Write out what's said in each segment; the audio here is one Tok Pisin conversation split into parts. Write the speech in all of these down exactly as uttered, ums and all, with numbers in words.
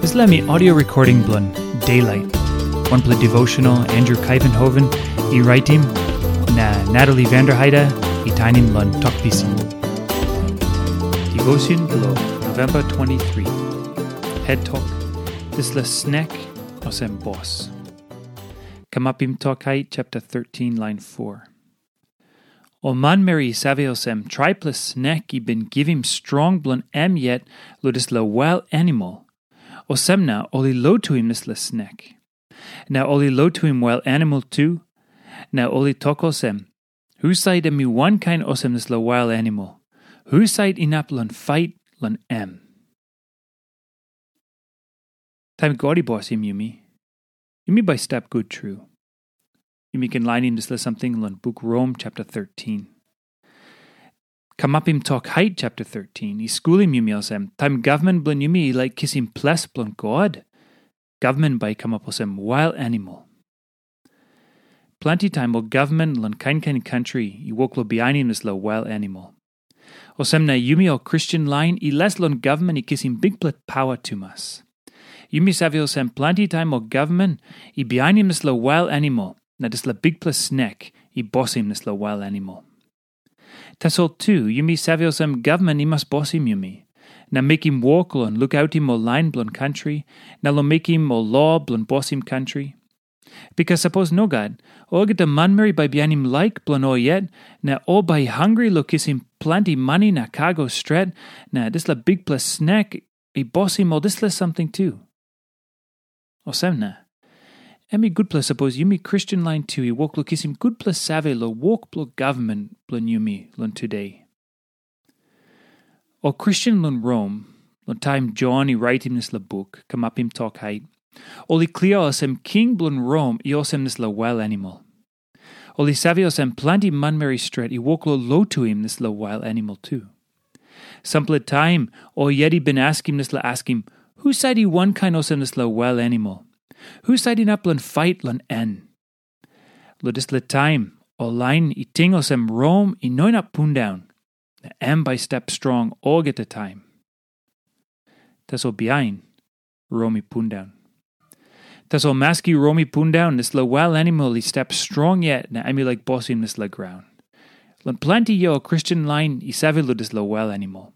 Dispela mi audio recording bilong Daylight. Wanpela devotional Andrew Kaivenhoven i raitim, na Natalie Vanderheide i tainim long Tok Pisin. Devotion bilong November twenty-three. Head Tok, Dispela Snek Olsem Bos. Kamapim Tok Hait chapter thirteen, line four. Ol manmeri i save olsem, traipela snek i bin givim strong bilong em yet long dispela wail animal. Olsem na ol i lotuim dispela snek. Na ol i lotuim wail animal tu, na ol i tok olsem, husat em i wankain olsem dispela wail animal? Husat inap long fait long em? Taim God i bosim yumi, yumi bai stap gut tru. Yumi ken lainim dispela samting long buk Rom chapter thirteen. Kamapim Tok Hait chapter thirteen i skulim yumi olsem, taim gavman bilong yumi i laik kisim ples bilong God, gavman bai i kamap olsem wail animal. Planti taim ol gavman long kain kain kantri i wok long bihainim dispela wail animal. Olsem na yumi ol Kristen lain i les long gavman i kisim bikpela pawa tumas. Yumi save olsem, planti taim ol gavman i bihainim dispela wail animal, na dispela bikpela snek i bosim dispela wail animal. Tasol tu, yumi save olsem, gavman i mas bosim yumi, na mekim wok long lukautim ol lain bilong kantri, na long mekim ol lo bilong bosim kantri. Bikas sapos nogat, olgeta manmeri bai bihainim laik bilong ol yet, na ol bai i hangre long kisim planti mani na kago stret, na dispela bikpela snek i bosim ol dispela samting tu. Olsem na, em i gutpela sapos yumi Kristen lain tu i wok long kisim gutpela save long wok bilong gavman bilong yumi long tude. Ol Kristen long Rom, long taim Jon i raitim dispela buk, Kamapim Tok Hait, ol i klia olsem king bilong Rom i olsem dispela wail animal. Ol i save olsem, planti manmeri stret i wok long lotuim dispela wail animal tu. Sampela taim ol yet i bin askim dispela askim, husat i wankain olsem dispela wail animal? Husat inap long fait long en? Long dispela taim, ol lain i ting olsem Rom i no inap pundaun, na em bai i stap strong olgeta taim. Tasol bihain, Rom i pundaun. Tasol maski Rom i pundaun, dispela wail animal i stap strong yet, na em i laik bosim dispela graun. Long planti yia ol Kristen lain i save long dispela wail animal.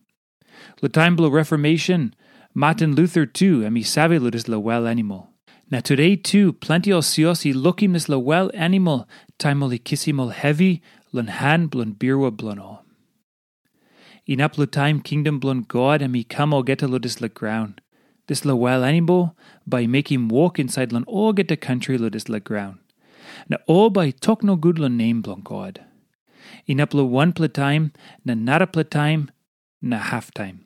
Long taim bilong Reformation, Martin Luther tu em i save long dispela wail animal. Na tude tu, planti ol sios i lukim dispela wail animal taim ol i kisim ol hevi long han bilong birua bilong ol. Inap long taim kingdom bilong God em i kam olgeta long dispela graun, dispela wail animal bai i mekim wok insait long olgeta kantri long dispela graun. Na ol bai i tok nogut long nem bilong God. Inap long wanpela taim, na narapela taim, na haftaim.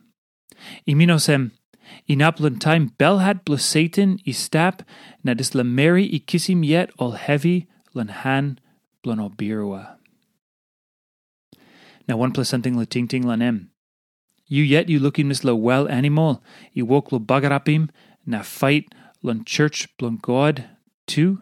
I min olsem, inap long taim belhat bilong Satan i stap, na dispela meri i kisim yet ol hevi long han bilong ol birua. Na wanpela samting long tingting long em. Yu yet yu lukim dispela wail animal i wok long bagarapim na fait long church bilong God tu?